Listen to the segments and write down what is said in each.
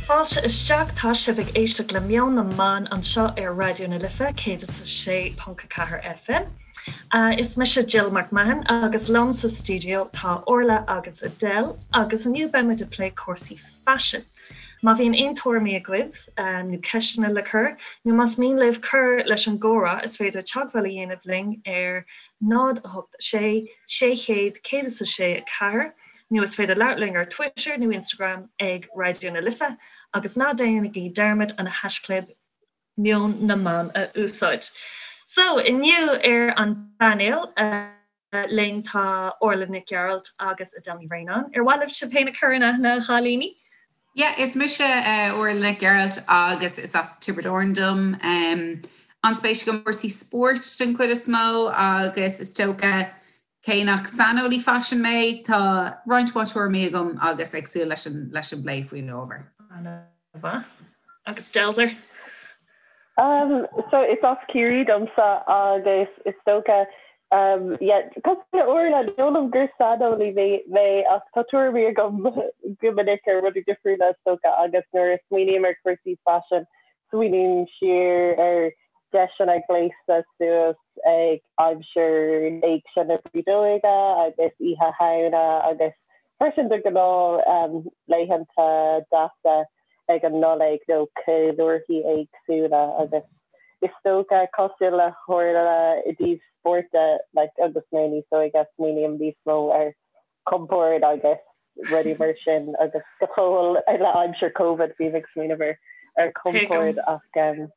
Fáilte isteach, tá sibh ag éisteacht le Meon na mBan anseo ar Raidió na Life 106.4 FM. Is mise Jill McMahon agus liom sa stiúideo tá Orla agus Adele agus inniu beidh muid ag plé cúrsaí faisin. Má bhíonn aon tuairimí agaibh nó ceisteanna le cur, nó más mian libh cur leis an gcomhrá, is féidir teagmháil a dhéanamh linn ar 0 8 6 600 106 4 nó is féidir labhairt linn ar Twitter nó Instagram ag Raidió na Life agus ná déanaigí dearmad an haischlib Meon na mBan a úsáid. So, inniu ar an bpainéal linn tá Orla Nic Gearailt agus Adele Ní Bhraonáin. Ar mhaith libh sibh féin a chur in aithne, a chailíní? Yeah, is mise Orla Nic Gearailt agus is as Tiobraid Árann dom. An-spéis agam i gcúrsaí spóirt den chuid is mó agus is dócha Cé nach saineolaí faisin mé, tá roinnt mhaith tuairimí agam agus ag súil leis an leis an bplé faoin ábhar. An-mhaith. Agus Delzer? Um, so is as Ciarraí domsa agus is dócha um, yeah, cosúil le Orla, ní dóigh liom gur saineolaí mé mé ach tá tuairimí agam go minic ar rudaí difriúla is dócha agus nuair a smaoiním ar chúrsaí faisin, smaoiním siar ar deiseanna gléasadh suas ag aimsir Éigse na Brídeoige agus Oíche Shamhna agus freisin de ghnáth laethanta deasa ag an Nollaig nó ceiliúrthaí éagsúla agus is dócha cosúil le hOrla i dtaobh spóirt de like agus mé níos óige smaoiním níos mó ar compord agus rudaí mar sin agus go fóill le aimsir Covid bím ag smaoineamh ar ar compord ach um,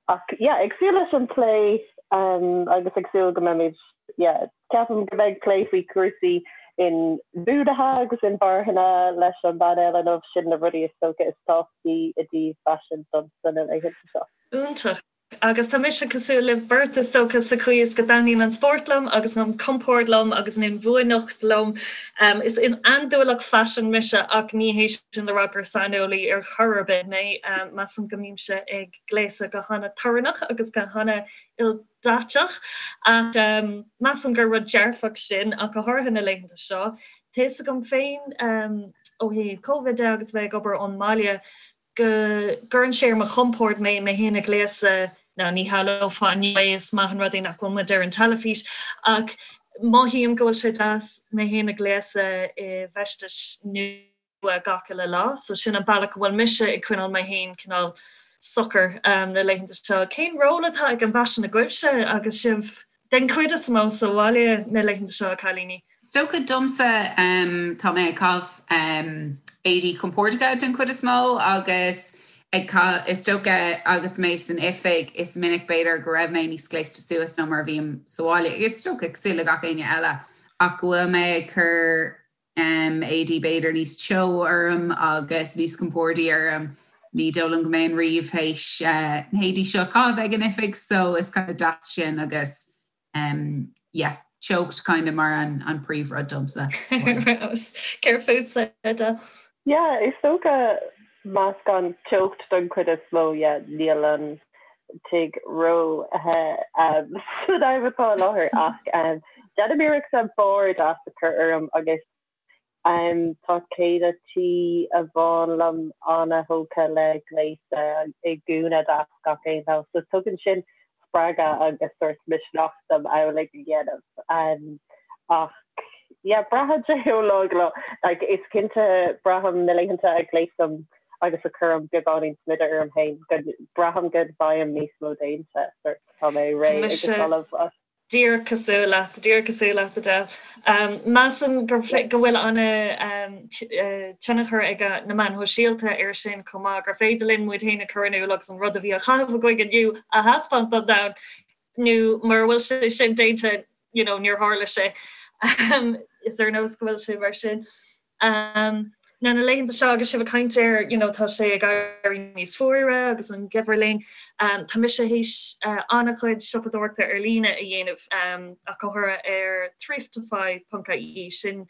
ach yeah, ag súil leis an plé um, agus ag súil go mbeimid yeah, ceapaim go mbeidh plé faoi chúrsaí inbhuanaithe agus inmharthana leis an bpainéal inniu sin na rudaí is dócha is tábhachtaí i dtaobh faisin domsa na laethanta seo. Iontach. Agus tá mise cosúil libh beirt, is dócha, sa chaoi is go dtaitníonn an spórt liom agus an compord liom agus an inbhuanaitheacht liom. Is andúileach faisin mise ach ní hé sin le rá gur saineolaí ar chor ar bith mé. Measaim go mbímse ag gléasadh go hana-torannach agus go hana-ildaiteach ach measaim gur rud dearfach sin ach go háirithe na laethanta seo. Tá fhios agam féin ó thaobh Covid de agus bheith ag obair ón mbaile, go gcuireann sé ar mo chompord mé mé féin a ghléasadh, now ní shamhlófá inniu é, is maith an rud é nach bhfuil muid ar an teilifís, ach mothaím go bhfuil sé deas mé féin a ghléasadh i bhfeistis nua gach uile lá, so sin an bealach go bhfuil mise ag coinneáil mé féin cineál socair na laethanta seo. Cén ról atá ag an bhfaisean agaibhse agus sibh Den chuid is mó sa bhaile na laethanta seo, a chailíní. Is dócha domsa, tá mé ag caitheamh éadaí compordacha den chuid is mó agus ag caitheamh, is dócha agus mé san oifig is minic b'fhéidir go raibh mé níos gléasta suas ná mar a bhím sa bhaile, is dócha cosúil le gach éinne eile ach go bhfuil mé ag cur éadaí b'fhéidir níos teo orm agus níos compordaí orm. Ní dóigh liom go mbeinn riamh théis na héadaí seo a chaitheamh ag an oifig so is kind of deas sin agus yeah, teocht kind of mar an, an príomhrud domsa. Céard fútsa, Edel? Yeah, is dócha meascán teocht don chuid is mó, yeah, níl an tigh ró-the san am atá i láthair ach déanaim iarracht an barr deas a chur orm agus tá céile tí amháin liom ana-thógtha le gléasadh i ngúna deas gach aon lá so tugann sin spreagadh agus sórt misneach dom amhlaidh a dhéanamh. Ach yeah braitheann sé ó lá go lá. Like is cinnte braithim na laethanta a ghléasaim agus a chuirim beagáinín smideadh orm féin go braithim go bhfaighim níos mó déanta sórt tá mé réidh agus ullamh as. Díreach cosúil leat, díreach cosúil leat Adele. Measaim go bhfuil ana tionchar ag na meáin shóisialta ar sin chomh maith, gur féidir linn muid féin a chur in iúl agus an rud a bhí á chaitheamh againn inniu a thaispeáint don domhan, nó mura bhfuil sé sin déanta, you know, níor tharla sé. Is ar nós go bhfuil sé mar sin. Now na laethanta seo agus sibh ag caint ar you know tá sé ag éirí níos fuaire agus an geimhreadh linn, tá mise théis an-chuid siopadóireachta ar líne a dhéanamh ach go háirithe ar thriftify.ie, sin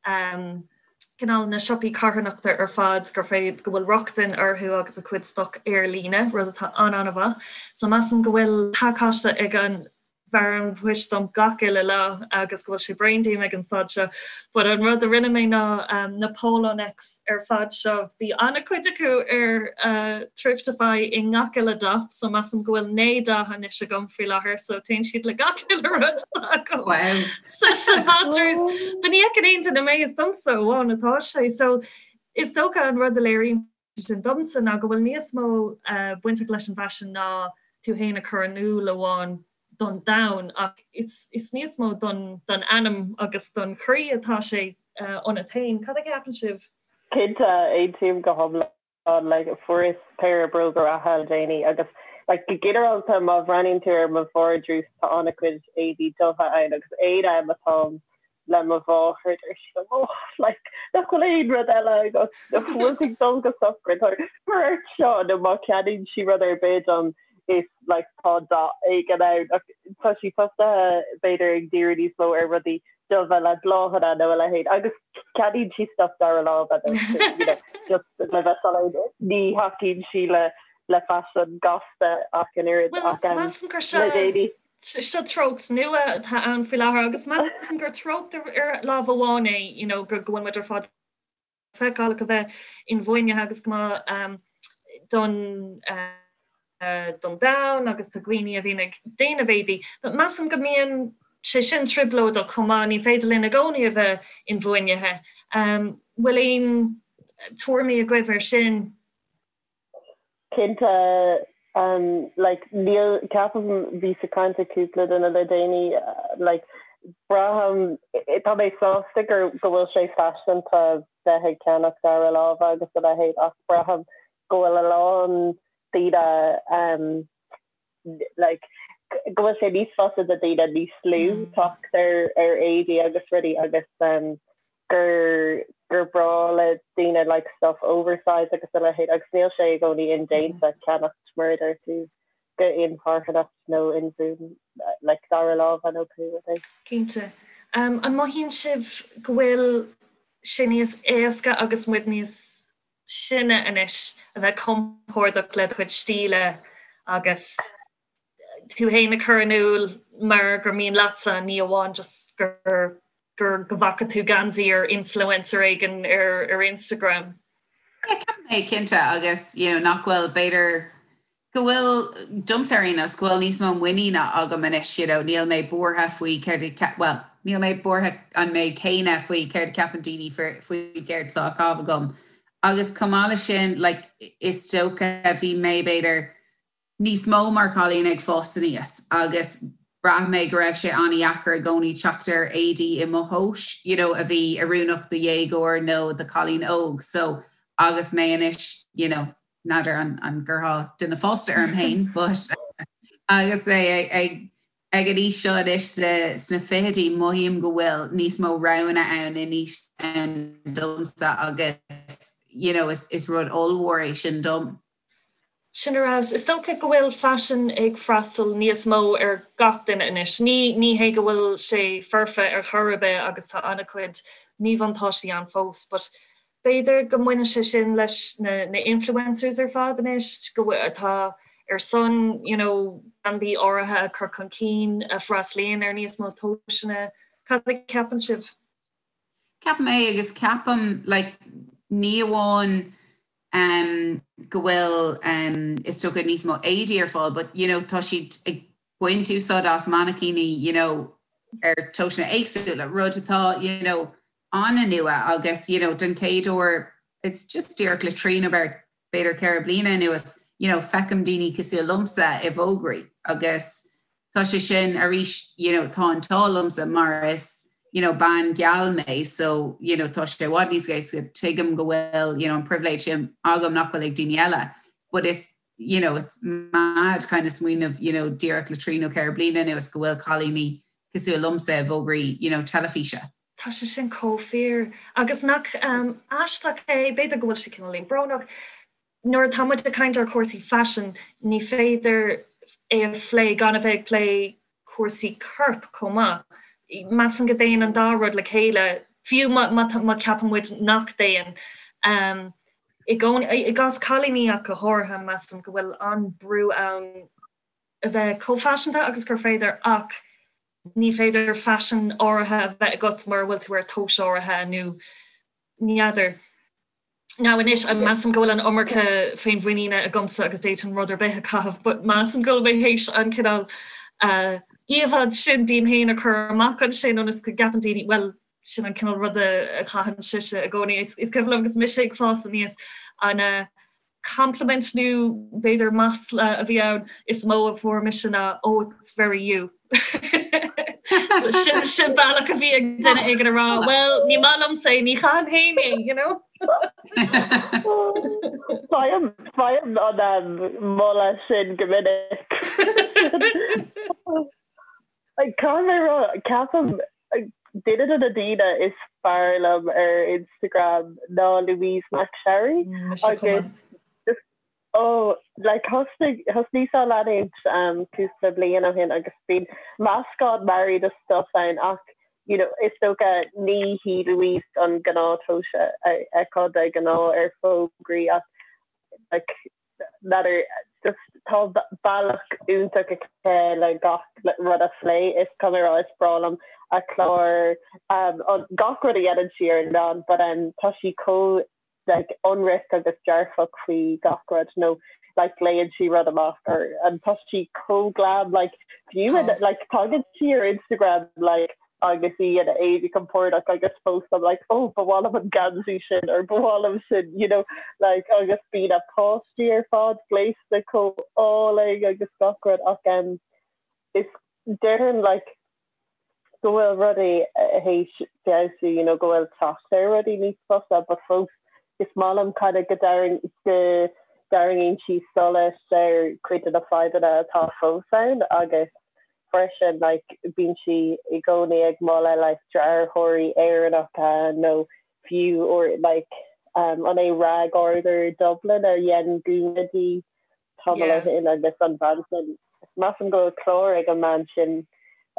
cineál na siopaí carthanachta ar fad gur féidir go bhfuil rochtain orthu agus a cuid stoc ar líne, rud atá an-an-mhaith. So measaim go bhfuil pacáiste ag an. bhfear an phoist dom gach uile lá agus go bhfuil sé bréan díom ag an staid seo. But an rud a rinne mé ná na polo necks ar fad seo, bhí an-chuid acu ar Thriftify i ngach uile dath, so measaim go bhfuil 9 dath anois agam faoi láthair, so téann siad le gach uile rud atá agam sa sa valdrús. But ní fheiceann aon duine mé, is domsa amháin atá sé. So is dócha an rud a léiríonn sin domsa ná go bhfuil níos mó bainteach leis an bhfaisean ná tú féin a chur in iúl amháin don domhan ach is níos mó don anam agus don chroí atá sé ionat féin. Cad a cheapann sibh? Cinnte, aontaím go hiomlán. Like, fuaireas péire bróga reatha le déanaí agus like, go ginearálta má bhreathnaíonn tú ar mo vardrús tá an-chuid éadaí dubha ann agus aon am atáim le mo mháthair deir sí liom oh like nach bhfuil aon rud eile agat nach bhfuil tú ag dul go sochraid cuir ort seo nó má cheannaíonn sí rud ar bith dom is like tá dath éigin ann ach tá sí tosaithe b'fhéidir ag díriú níos mó ar rudaí dubha le bláthanna nó a leithéid agus ceannaíonn sí stuff dara láimhe though so you know just le bheith soiléir ní thacaíonn sí le le faisean gasta ach an oiread ach um, measaim gur seo le déanaí. Seo treocht nua atá ann faoi láthair agus measaim gur treocht ar lámh amháin é you know go bhfuil muid ar fad feiceálach a bheith inbhuanaithe agus go maith don don domhan agus do dhaoine a bhíonn ag déanamh éadaí. But measaim go mbíonn sé sin trioblóideach chomh maith, ní féidir linn i gcónaí a bheith inbhuanaithe. Bhfuil aon tuairimí agaibh ar sin? Cinnte, like, níl, ceapaim, bhíos ag caint le cúpla duine le déanaí, like, braithim, tá mé sásta gur, go bhfuil sé faiseanta bheith ag ceannach dara láimhe agus a leithéid ach braithim go bhfuil a lán daoine, like, go bhfuil sé níos fusa do daoine níos lú teacht ar ar éadaí agus rudaí agus um, gur gur breá le daoine like stuff oversize agus a leithéid agus níl sé i gcónaí indéanta ceannacht mar a deir tú go inmharthanach nó inbhuan like dara láimhe nó pé rud é. Cinnte. Um, an mothaíonn sibh go bhfuil sé níos éasca agus muid níos sine anois a bheith compordach le do chuid stíle agus tú féin a chur in iúl mar gur mian leatsa, ní amháin just gur gur go bhfaca tú geansaí ar influencer éigin ar ar Instagram. Yeah, ceapaim é cinnte agus you know, nach bhfuil b'fhéidir go bhfuil, domsa ar aon nós, go bhfuil níos mó muiníne agam anois, you know, níl mé buartha faoi céard a, bhuel, níl mé buartha an méid céanna faoi céard a cheapann daoine faoi céard atá á chaitheamh agam. Agus chomh maith leis sin, like, is dócha, bhí mé, b'fhéidir, níos mó mar chailín ag fás aníos agus bhraith mé go raibh sé an-dheacair i gcónaí teacht ar éadaí i mo thomhas, you know, a bhí oiriúnach do dhéagóir nó do chailín óg. So, agus mé anois, you know, n'fheadar an gcuirfeá duine fásta orm féin but agus mé ag ag an aois seo anois sna fichidí mothaím go bhfuil níos mó roghanna ann anois ann domsa agus you know is is rud ollmhór é sin dom. Sin ar fheabhas. Is dócha go bhfuil faisean ag freastal níos mó ar gach duine anois. Ní ní hé go bhfuil sé foirfe ar chor ar bith agus tá an-chuid míbhuntáistí ann fós but B'fhéidir go mbaineann sé sin leis na na influencers ar fad anois, go bhfuil, atá ar son you know brandaí áirithe a chur chun cinn, a freastalaíonn ar níos mó tomhaiseanna. Cad a cheapann sibh? Ceapaim é agus ceapaim like ní amháin um go bhfuil um is dócha níos mó éadaí ar fáil but you know tá siad ag baint úsáid as mainicíní you know ar tomhaiseanna éagsúla, rud atá you know an-nua agus you know den chéad uair it's just díreach le trí nó b'fhéidir 4 bliana anuas you know feicim daoine cosúil liomsa i bhfógraí agus tá sé sin arís you know tá an t-ádh liomsa mar is you know bean geal mé so you know tá sé i bhfad níos éasca tuigim go bhfuil you know an pribhléid sin agam nach bhfuil ag daoine eile but is you know it's mad kind of smaoineamh you know díreach le trí nó 4 bliana anuas go bhfuil cailíní cosúil liomsa i bhfógraí you know teilifíse. Tá sé sin chomh fíor. Agus nach aisteach é, b'fhéidir go bhfuil sé cineáilín brónach, nuair atá muid ag caint ar chúrsaí faisin, ní féidir é a phlé gan a bheith ag plé cúrsaí coirp chomh maith. Measaim go dtéann an dá rud le chéile, fiú má cheapann muid nach dtéann. I gcás cailíní ach go háirithe, measaim go bhfuil an-brú ann. a bheith chomh faiseanta agus gur féidir ach ní féidir faisean áirithe a bheith agat mura bhfuil tú ar tomhas áirithe nó ní fheadar. Now anois, measaim go bhfuil an iomarca féinmhuiníne agamsa agus d'fhéadfainn rud ar bith a chaitheamh but measaim go bhfuil mé théis an cineál íomhá sin díom féin a chur amach ansin ionas go gceapann daoine, bhuel, sin an cineál ruda a chaitheann sise i gcónaí. Is cuimhin liom agus mise ag fás aníos an compliment nó b'fhéidir masla a bhí ann is mó a fuair mise ná oh it's very you. Sin sin bealach a bhí ag duine éigin a rá well ní maith liomsa é ní chaithim féin é you know. Faighim faighim an moladh sin go minic. Caithfidh mé a rá, ceapaim duine de na daoine is fearr liom ar Instagram ná Louise McSharry agus just oh like thosnaigh thosnaíos á leanúint um cúpla bliain ó shin agus bíonn meascán mearaí de stuff ann ach you know is dócha ní hí Louise an gnáth-tomhas a fheicfeá de ghnáth ar fógraí ach like n'fheadar, just tá bealach iontach aici le gach rud a phlé, is caithfidh mé a rá is breá liom a clár, gach rud a dhéanann sí ar an meán but tá sí chomh like ionraic agus dearfach faoi gach rud nó like léann sí rud amach or and tá sí chomh glam like fiú like tagann sí ar Instagram like agus í ina éadaí compordach agus fós I'm like oh ba mhaith liom an geansaí sin or ba mhaith liom sin you know like agus bíonn a páistí ar fad gléasta chomh álainn agus gach rud ach um, is déarfainn like go bhfuil rudaí théis feabhsú you know go bhfuil teacht ar rudaí níos fusa but fós is maith liom kind of go dtarraing go dtarraingíonn sí solas ar cuid de na fadhbanna atá fós ann agus freisin like bíonn sí i gcónaí ag moladh like dearthóirí Éireannacha nó fiú or like um an é Rag Order Dublin a dhein gúna di tamall ó shin agus an bhean sin measaim go bhfuil clár ag an mbean sin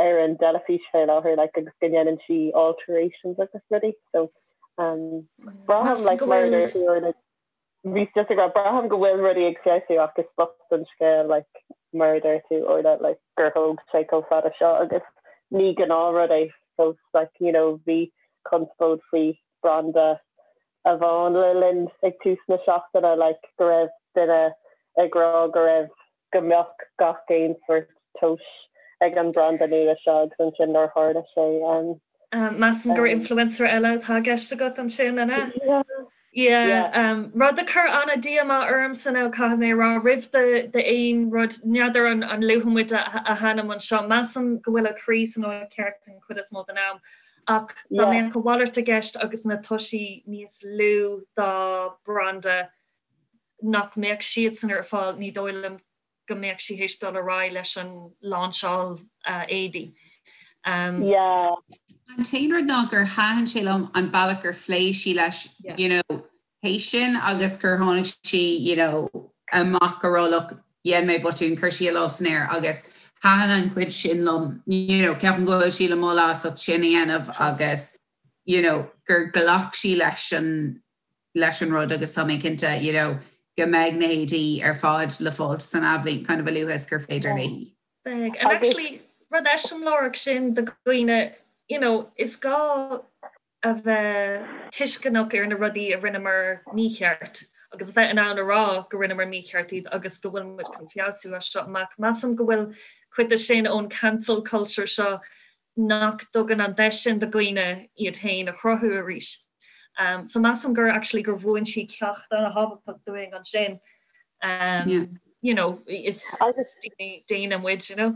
ar an dteilifís fé láthair like agus go ndéanann sí alterations agus rudaí so um braithim like mar a deir tú ar na Bhíos just ag rá, braithim go bhfuil rudaí ag feabhsú ach is bocht an scéal like mar a deir tú Orla like gur thóg sé chomh fada seo agus ní gnáthrud é fós like you know bhí conspóid faoi branda amháin le linn ag tús na seachtaine like go raibh duine ag rá go raibh go mbeadh gach aon sórt tomhais ag an branda nua seo agus ansin nár tharla sé. Measaim gur influencer eile atá i gceist agat ansin, an ea? Yeah. Rud a chuir an-díomá ormsa nó caithfidh mé a rá, roimh d'aon rud, n'fheadar an luafaidh muid a hainm anseo, measaim go bhfuil a croí san áit cheart den chuid is mó den am, ach dá mbeadh a mhalairt i gceist agus na toisí níos lú dá branda, nach mbeadh siadsan ar fáil, ní dóigh liom go mbeadh sí théis dul ar aghaidh leis an láinseáil éadaí. Yeah. An t-aon rud ná gur thaitin sé liom an bealach gur phléigh sí leis, you know, théis sin agus gur tháinig sí, you know, amach go raibh look, dhein mé botún, chuir sí a lámh san aer agus thaitin an chuid sin liom, you know, ceapaim go bhfuil sí le moladh as ucht sin a dhéanamh agus, you know, gur ghlac sí leis an leis an rud agus tá mé cinnte you know go mbeidh na héadaí ar fad le fáilt san athbhliain kind of a luaithe is gur féidir léi. Beidh. And actually rud eiseamláireach sin do dhaoine you know is gá a bheith tuisceanach ar na rudaí a rinneamar mícheart agus a bheith in ann a rá go rinneamar mícheart iad agus go bhfuil muid chun feabhsú as seo amach. Measaim go bhfuil cuid de sin ón cancel culture seo nach dtugann an deis sin do dhaoine iad féin a chruthú arís. So measaim gur actually gur mhúin sí ceacht an-thábhachtach dúinn ansin. You know, is daoine daonna muid, you know.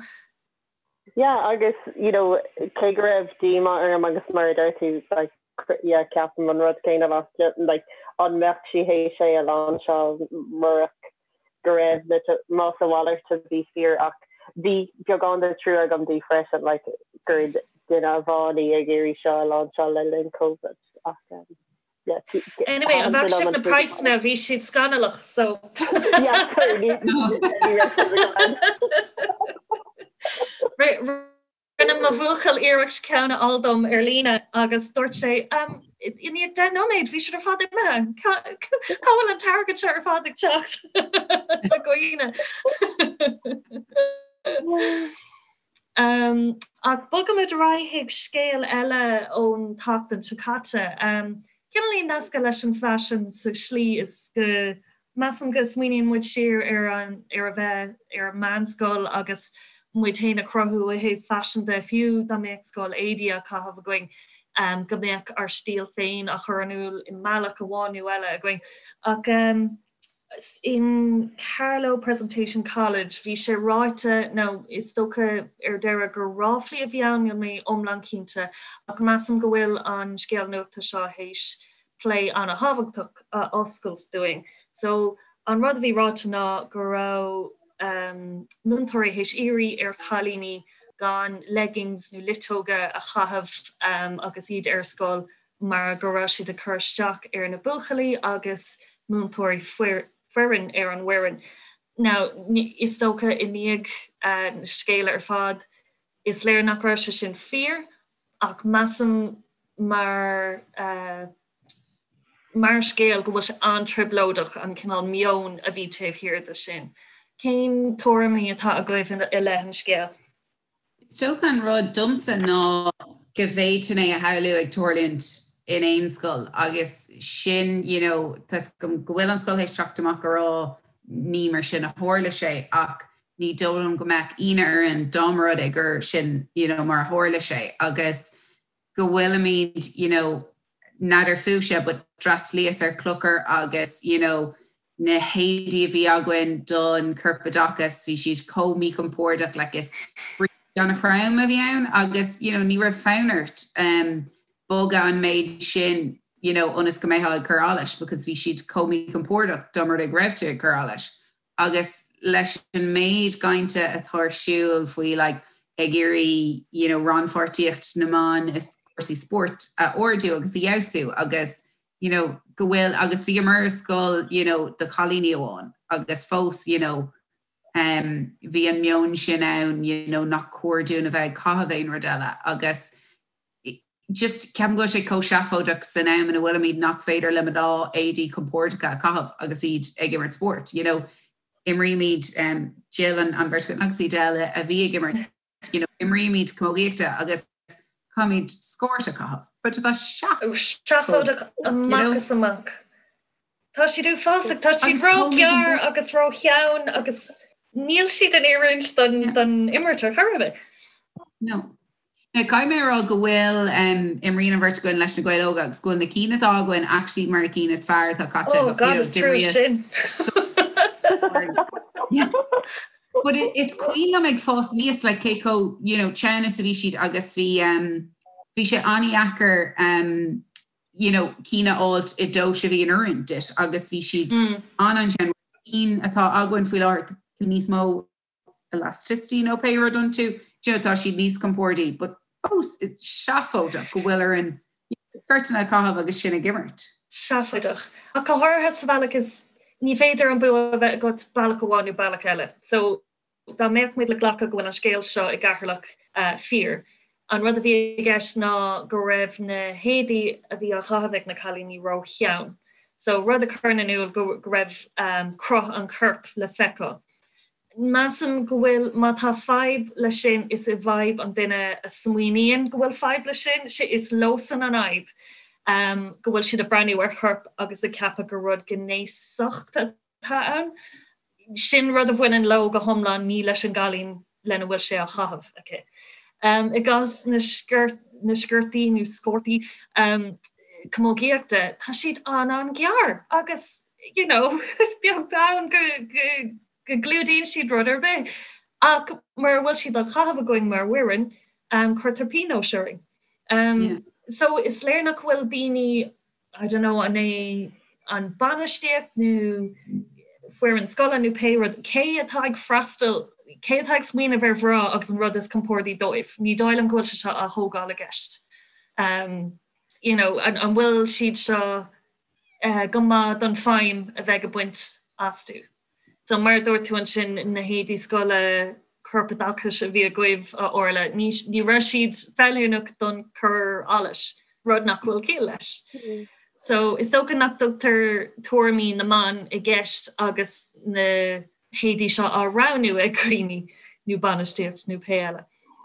Yeah, agus you know, cé go raibh díomá orm agus mar a deir tú like, yeah, ceapaim an rud céanna leat, like, an mbeadh sí théis é a láinseáil murach go raibh na más a mhalairt a bhí fíor ach bhí beagán de trua agam di freisin like gur duine amháin í ag iarraidh seo a láinseáil le linn Covid ach um, yeah, Anyway, an bhfaca sibh na praghsanna bhí siad scannalach so yeah, sorry, ní ní raibh siad agam. Rinne mo bhuachaill iarracht ceann a fháil dom ar líne agus dúirt sé, i ndiaidh 10 nóiméad bhí siad ar fad imithe. Cá bhfuil an t-airgead seo ar fad ag teacht do dhaoine? Ach bogaimid ar aghaidh chuig scéal eile ón tseachtain seo caite. Cineáilín nasctha leis an bhfaisean sa slí is go measaim go smaoiníonn muid siar ar an ar a bheith ar an meánscoil agus muid féin a chruthú ó thaobh faisin de, fiú dá mbeadh scoil éadaí á caitheamh againn, go mbeadh ár stíl féin á chur in iúl i mbealach amháin nó eile againn. Ach. In Carlow Presentation College, bhí sé ráite, nó is dócha ar deireadh gur ráflaí a bhí ann, níl mé iomlán cinnte, ach measaim go bhfuil an scéal nuachta seo théis plé an-thábhachtach a oscailt dúinn. So, an rud a bhí ráite ná go raibh múinteoirí théis iarraidh ar chailíní gan leggings nó luiteoga a chaitheamh agus iad ar scoil mar go raibh siad ag cur isteach ar na buachaillí agus múinteoirí foireann ar an bhfoireann. Now, is dócha i ndiaidh na scéala ar fad, is léir nach raibh sé sin fíor, ach measaim mar mar scéal go bhfuil sé an-trioblóideach an cineál meoin a bhí taobh thiar de sin. Cén tuairimí atá agaibh i leith an scéil? Is dócha an rud domsa ná go bhféadfainn é a shamhlú ag tarlúint in aon scoil agus sin you know tá 'fhios agam go bhfuil an scoil théis teacht amach a rá ní mar sin a tharla sé ach ní dóigh liom go mbeadh ionadh orainn dá mba rud é gur sin you know mar a tharla sé agus go bhfuilimid you know n'fheadar fúibhse but d'fhreastalaíos ar Chlochar agus you know na héadaí a bhí againn don chorpoideachas bhí siad chomh míchompordach like is bríste an-throm a bhí ann agus you know ní raibh fonn ort um bogadh an méid sin you know ionas go mbeifeá ag cur allais because bhí siad chomh míchompordach dá mba rud é go raibh tú ag cur allais. Agus leis an méid cainte atá ar siúl faoi like ag iarraidh you know rannpháirtíocht na mban i gcúrsaí spóirt a ardú agus a fheabhsú agus you know go bhfuil agus bhíomar i scoil you know do chailíní amháin agus fós you know um bhí an meon sin ann you know nach cóir dúinn a bheith ag caitheamh aon rud eile agus just ceapaim go bhfuil sé chomh seafóideach san am ina bhfuilimid nach féidir le mná éadaí compordacha a chaitheamh agus iad ag imirt spóirt. You know, imrímid um, Jill an, an bheirt agus iad eile a bhí ag imirt, you know, imrímid camógaíochta agus caithfimid scórt a chaitheamh. But tá seafóideach amach is amach. Tá siad uafásach, tá siad ró-ghearr agus ró-theann agus níl siad in oiriúint don, don imirt ar chor ar bith. No. Now, caithfidh mé a rá go bhfuil, imríonn an bheirt againn leis na Gaeil Óga agus go bhfuil na cinn atá againn actually mar na cinn is fearr atá caite Oh God, is trua sin. But is cuimhin liom ag fás aníos like cé chomh, you know, teann is a bhí siad agus bhí, bhí sé an-dheacair, you know, cinn a fháilt i dtomhas a bhí in oiriúint duit agus bhí siad an-an-teann. Cinn atá againn faoi láthair tá níos mó elasticity nó pé rud iontu, do you know, tá siad níos compordaí, but fós it's seafóideach go bhfuil orainn sciortanna a chaitheamh agus sinn ag imirt. Seafóideach. Ach go háirithe sa bhealach is ní féidir an bua a bheith agat bealach amháin nó bealach eile. So dá mbeadh muid le glacadh go bhfuil an scéal seo i gCeatharlach fíor, an rud a bhí i gceist ná go raibh na héadaí a bhí á chaitheamh ag na cailíní ró-theann. So rud a chuireann in iúl go raibh cruth an choirp le feiceáil. Measaim go bhfuil, má tá fadhb leis sin, is i bhfadhb an duine a smaoiníonn go bhfuil fadhb leis sin, is leosan an fhadhb go bhfuil siad ag breathnú ar chorp agus ag ceapadh gur rud gnéasach atá ann. Sin rud a bhaineann leo go hiomlán, ní leis an gcailín lena bhfuil sé á chaitheamh aici. I gcás na na sciortaí nó scórtaí camógaíochta, tá siad an-an-ghearr agus you know is beag beann go go gclúdaíonn siad rud ar bith. Ach mura bhfuil siad á chaitheamh againn mar fhoireann, cuirtear pionós orainn. So is léir nach bhfuil daoine I don't know, an é an bainistíocht nó foireann scoile nó pé rud, cé atá ag freastal, cé atá ag smaoineamh ar mhná agus an rud is compordaí dóibh? Ní dóigh liom go bhfuil sé seo á thógáil i gceist. Um, you know, an, an bhfuil siad seo uh, go maith don feidhm a bheidh ag baint astu? So mar a dúirt tú ansin, na héadaí scoile corpoideachais a bhí agaibh, a Orla, ní ní raibh siad feiliúnach don cur allais, rud nach bhfuil ciall leis. So is dócha nach dtugtar tuairimí na mban i gceist agus na héadaí seo á roghnú ag daoine. nó bainistíocht nó pé eile.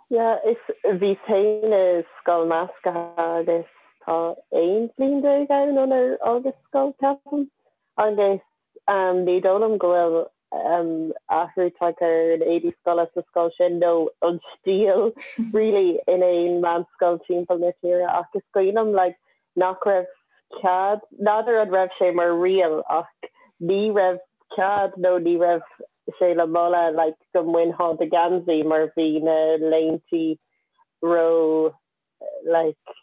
Yeah, is bhíos féin i scoil measctha agus tá 11 bliain ann ónar fhágas scoil, ceapaim, agus ní dóigh liom go bhfuil athrú tagtha ar an éadaí scoile sa scoil sin nó an stíl really in aon meánscoil timpeall na tíre ach is cuimhin liom like nach raibh cead, n'fheadar an raibh sé mar riail ach ní raibh cead nó ní raibh sé le moladh like go mbainfeá do gheansaí mar bhí na léintí ró like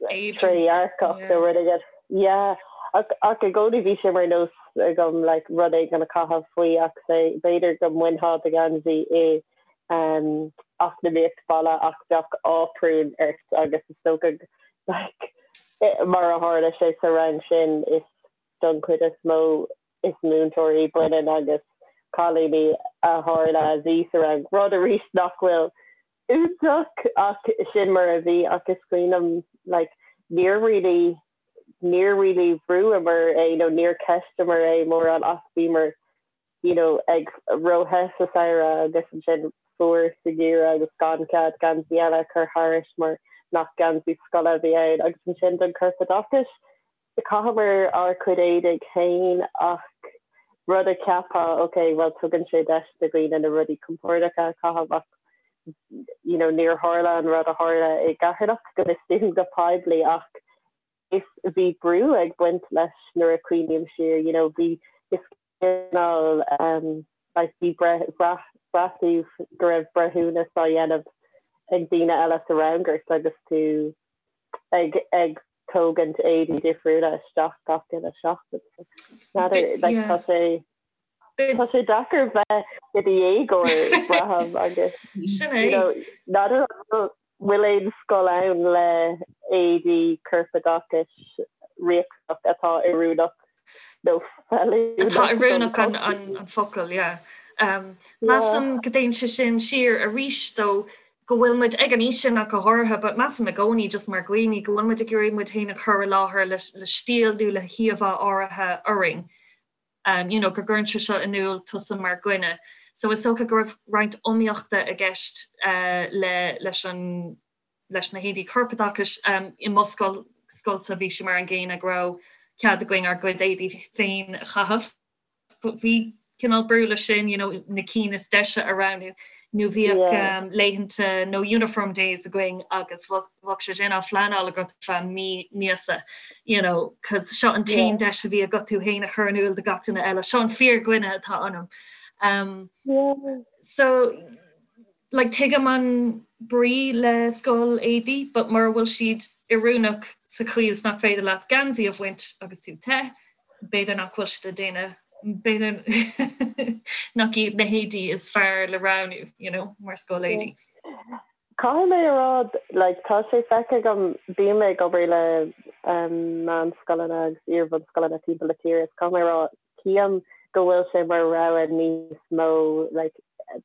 trédhearcach nó rud éigin. Yeah ach ach i gcónaí bhí sé mar nós agam like rud éigin a chaitheamh faoi ach say b'fhéidir go mbainfeá do gheansaí i um eacnamaíocht baile ach bheadh áprún ort agus is dócha like mar a tharla sé sa rang sin is don chuid is mó is múinteoirí baineann agus cailíní a tharla a bhí sa rang, rud arís nach bhfuil iontach ach sin mar a bhí ach is cuimhin liom like níor really níor really bhrúamar é nó níor cheisteamar é mórán ach bhíomar you know ag ró-the sa samhradh agus ansin fuar sa gheimhreadh agus gan cead geansaí eile a chur thairis mar nach geansaí scoile a bhí ann agus ansin don chorpoideachas Chaitheamar ár cuid éadaigh féin ach rud a cheapfá, ok, bhuel tugann sé deis do dhaoine na rudaí compordacha a chaitheamh ach you know níor tharla an rud a tharla i gCeatharlach go bhfios dúinn go poiblí ach is bhí brú ag baint leis nuair a cuimhním siar, you know bhí is cineál like bhí brath braith tú go raibh breithiúnas á dhéanamh ag daoine eile sa rang ort agus tú ag ag tógaint éadaí difriúla isteach gach uile seachtain. N'fheadar, like, tá sé tá sé deacair bheith i do dhéagóir braithim agus Sin é. you know, n'fheadar an bhfuil bhfuil aon scoil ann le éadaí corpoideachais riachtanach atá oiriúnach nó feiliúnach Atá oiriúnach an an an focal, yeah. Um, measaim go dtéann sé sin siar arís dó go bhfuil muid ag an aois sin ach go háirithe, but measaim i gcónaí just mar dhaoine go bhfuil muid ag iarraidh muid féin a chur i láthair le le stíl nó le híomhá áirithe orainn. Um, you know, go gcuireann sé seo in iúl tusa mar dhuine. So is dócha go raibh roinnt iomaíochta i gceist uh, le leis an leis na héadaí corpoideachais. Um, I mo scoil scoilsa bhí sé mar an gcéanna go raibh cead againn ár gcuid éadaí féin a chaitheamh. Bhí cineál brú leis sin, you know, na cinn is deise a roghnú, nó bhíodh yeah. um, laethanta nó uniform days againn agus bheadh sé sin á phleanáil agat feadh mí míosa, you know, cos seo an t-aon yeah. deis a bhí agat tú féin a chur in iúl do gach duine eile, seo an fíordhuine atá ionam. Um, yeah. So like tuigim an brí le scoil éadaí, but mura bhfuil siad oiriúnach sa chaoi is nach féidir leat geansaí a bhaint agus tú te, b'fhéidir nach bhfuil siad ag déanamh, b'fhéidir nach iad na héadaí is fearr le roghnú, you know, mar scoil éadaí. Caithfidh mé a rá, like, tá sé feicthe agam, bím ag obair le meánscoileanna agus iar-bhunscoileanna timpeall na tíre, is caithfidh mé a rá, Tchím go bhfuil sé mar rogha níos mó like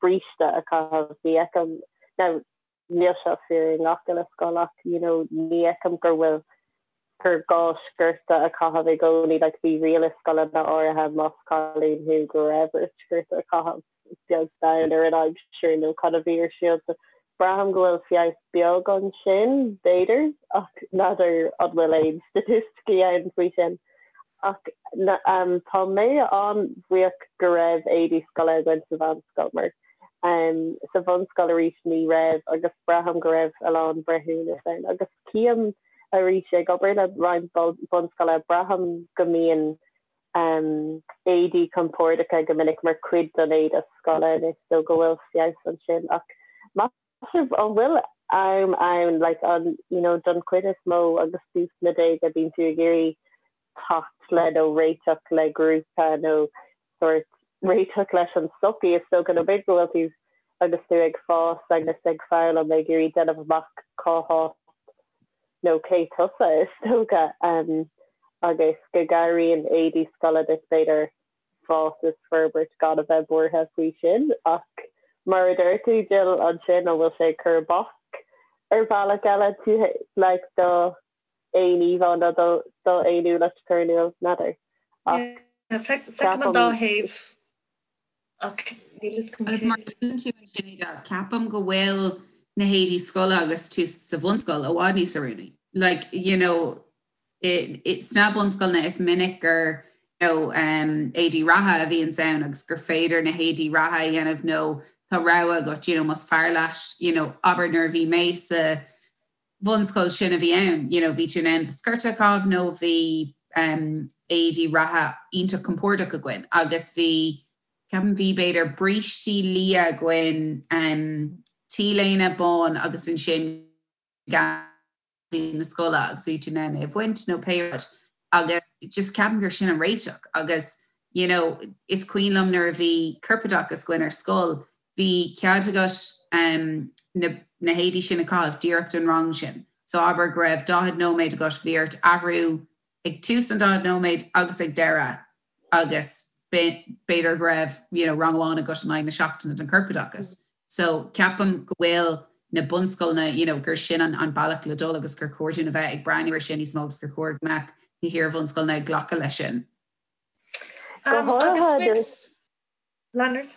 bríste a chaitheamh. Ní fheicim, now níl seo fíor i ngach uile scoil ach you know ní fheicim gur bhfuil gur gá sciorta a chaitheamh i gcónaí like bhí riail i scoileanna áirithe más cailín thú go raibh ort sciorta a chaitheamh. beag beann ar an aimsir nó cad a bhí ar siúl. So braithim go bhfuil feabhas beag ansin, b'fhéidir, ach n'fheadar an bhfuil aon staitisticí ann faoi sin. Ach tá mé an-bhuíoch go raibh éadaí scoile againn sa mheánscoil mar sa bhunscoil arís ní raibh agus braithim go raibh a lán breithiúnas ann. Agus tchím arís ag obair le roinnt bunscoile, braithim go mbíonn éadaí compordacha go minic mar chuid den éide scoile anois so go bhfuil feabhas ansin ach meas sibh an bhfuil am ann like an you know don chuid is mó agus tú sna déaga bíonn tú ag iarraidh teacht le nó réiteach le grúpa nó sórt réiteach leis an tsochaí is dócha nó b'fhéidir go bhfuil tú agus tú ag fás agus ag foghlaim ag iarraidh déanamh amach cá háit nó cé tusa, is dócha, agus go gcabhraíonn éadaí scoile duit, b'fhéidir, fás is forbairt gan a bheith buartha faoi sin. Ach mar a deir tú, Jill, ansin, an bhfuil sé ag cur bac ar bhealach eile tú, like, do aon íomhá nó do d'fhéiniúlacht a chur in iúl? N'fheadar. Ach Feicim an dá thaobh. Ach. Agus mar a luann tú ansin, Edel, ceapaim go bhfuil na héadaí scoile agus tú sa bhunscoil i bhfad níos oiriúnaí. Like, you know, sna bunscoileanna is minic gur you know, um, éadaí reatha a bhíonns ann agus gur féidir na héadaí reatha a dhéanamh nó tá rogha agat, you know, más fearr leat, you know, abair nuair a bhí mé sa bhunscoil sin a bhí ann, you know, bhí tú in ann do sciorta a chaitheamh nó bhí um, éadaí reatha iontach compordach againn agus bhí ceapaim bhí b'fhéidir brístí liath againn, um, t-léine bán agus ansin geansaí na scoile agus bhí tú in ann é a bhaint nó pé rud agus just ceapaim gur sin an réiteach agus you know, is cuimhin liom nuair a bhí corpoideachas againn ar scoil bhí cead agat um, na, na héadaí sin a chaitheamh díreach don rang sin. So abair go raibh 40 nóiméad agat bhí ort athrú ag tús an 40 nóiméad agus ag deireadh agus b'fhéidir go raibh you know, rang amháin agat in aghaidh na seachtaine den chorpoideachas. So ceapaim go bhfuil na bunscoileanna you know, gur sin an, an bealach le dul agus gur chóir dúinn a bheith ag breathnú ar sin níos mó agus gur chóir go mbeadh na hiar-bhunscoileanna ag glacadh leis sin. Um, agus Leonard?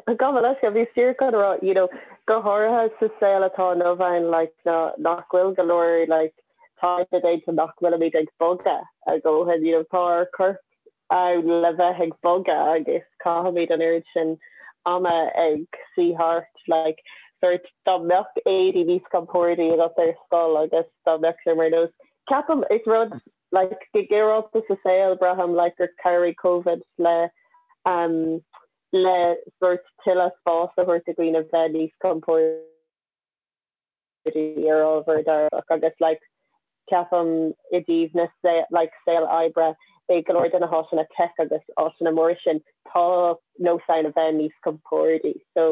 Gabh mo leithscéal, bhíos díreach chun a rá, you know, go háirithe sa saol atá inniu ann, like, ná, nach bhfuil go leor, like, taighde déanta nach bhfuilimid ag bogadh a dhóthain, you know, tá ár corp ann le bheith ag bogadh agus caithimid an oiread sin ama ag suí thart, like, sort, dá mbeadh éadaí níos compordaí agat ar scoil agus dá mbeadh sé mar nós, ceapaim, is rud, like, go ginearálta sa saol, braithim, like, gur chabhraigh Covid le, um, le sórt tuilleadh spáis a thabhairt do dhaoine bheith níos compordaí ar ábhar dearfach agus like ceapaim i dtaobh na like saol oibre i go leor de na háiteanna tech agus áiteanna móra sin tá nós ann a bheith níos compordaí so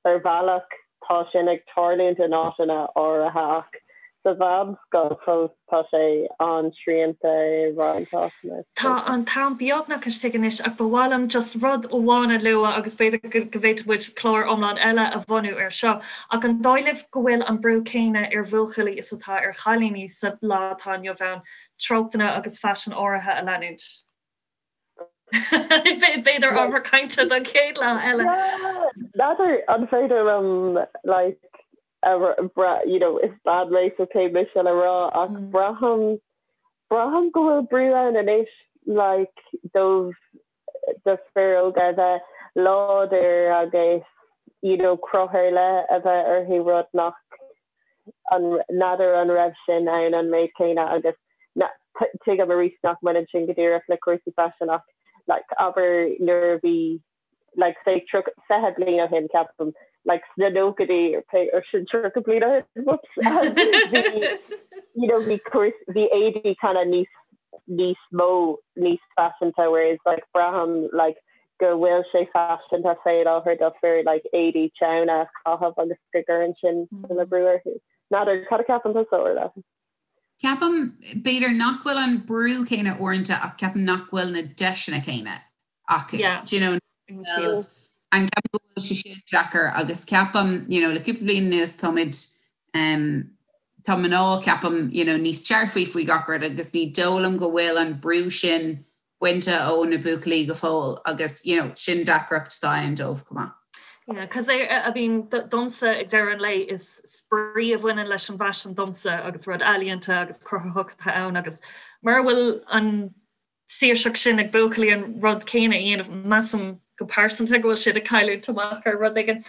Ar bhealach, tá sin ag tarlúint in áiteanna áirithe ach sa mheánscoil fós tá sé an-srianta i roinnt áiteanna. Tá an t-am beagnach istigh anois ach ba mhaith liom just rud amháin a lua agus b'fhéidir go bhféadfadh muid clár iomlán eile a bhunú air seo ach an dóigh libh go bhfuil an brú céanna ar bhuachaillí is atá ar chailíní sa lá atá inniu ann treochtanna agus faisean áirithe a leanúint? B'fhéidir ábhar cainte don chéad lá eile. N'fheadar an féidir liom like you know is bean mé so cé mise le rá ach braithim braithim go bhfuil brú ann anois like dóibh do fir óga a bheith láidir agus you know cruth ar leith a bheith orthu rud nach N'fheadar an raibh sin ann an méid céanna agus tuigim arís nach mbaineann sin go díreach le cúrsaí faisin ach like abair nuair a bhí like say 20 bliain ó shin ceapaim like sna nóchaidí pé or sin 30 bliain ó shin whoops bhí you know bhí cúrs bhí éadaí kind of níos níos mó níos faiseanta whereas like braithim like go bhfuil sé faiseanta fé láthair do fir like éadaí teanna a chaitheamh agus go gcuireann sin tuilleadh brú orthu. N'fheadar, cad a ceapann tusa, Orla? Ceapaim, b'fhéidir nach bhfuil an brú céanna uaireanta ach ceapaim nach bhfuil na deiseanna céanna acu. Yeah. Do you know, bhfuil, and ceapaim go bhfuil sé sin deacair agus ceapaim, you know, le cúpla bliain anuas táimid, um, tá mná, ceapaim, you know, níos dearfaí faoi gach rud agus ní dóigh liom go bhfuil an brú sin bainte ó na buachaillí go fóill agus you know sin deacracht atá ann dóibh chomh maith. Yeah, cos I mean domsa ag deireadh an lae is spraoi a bhaineann leis an bhfaisean domsa agus rud ealaíonta agus cruthaitheach atá ann agus mura bhfuil an saoirseacht sin ag buachaillí an rud céanna a dhéanamh measaim go pearsanta go bhfuil siad ag cailliúint amach ar rud éigin.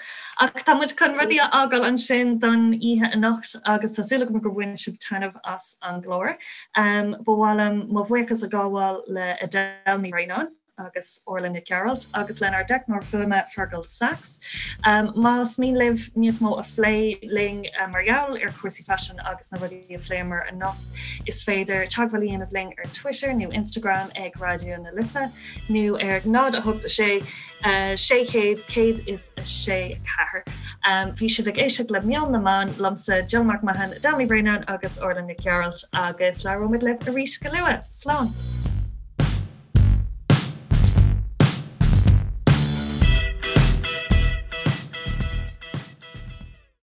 Ach tá muid chun rudaí a fhágáil ansin don oíche anocht agus tá súil agam gur bhain sibh taitneamh as an gclár. Ba mhaith liom mo bhuíochas a ghabháil le Edel Ní Bhraonáin agus Orla Nic Gearailt agus lenár dteicneoir fuaime Fergal Sachs. Más mian libh níos mó a phlé linn mar gheall ar chúrsaí faisin agus na rudaí a phléamar anocht, is féidir teagmháil a dhéanamh linn ar Twitter nó Instagram ag Raidió na Life. nó ar 0 8 6 600 106 4. Bhí sibh ag éisteacht le Meon na mBan, liomsa Jill McMahon, Edel Ní Bhraonáin agus Orla Nic Gearailt agus labhróimid libh arís go luath. Slán!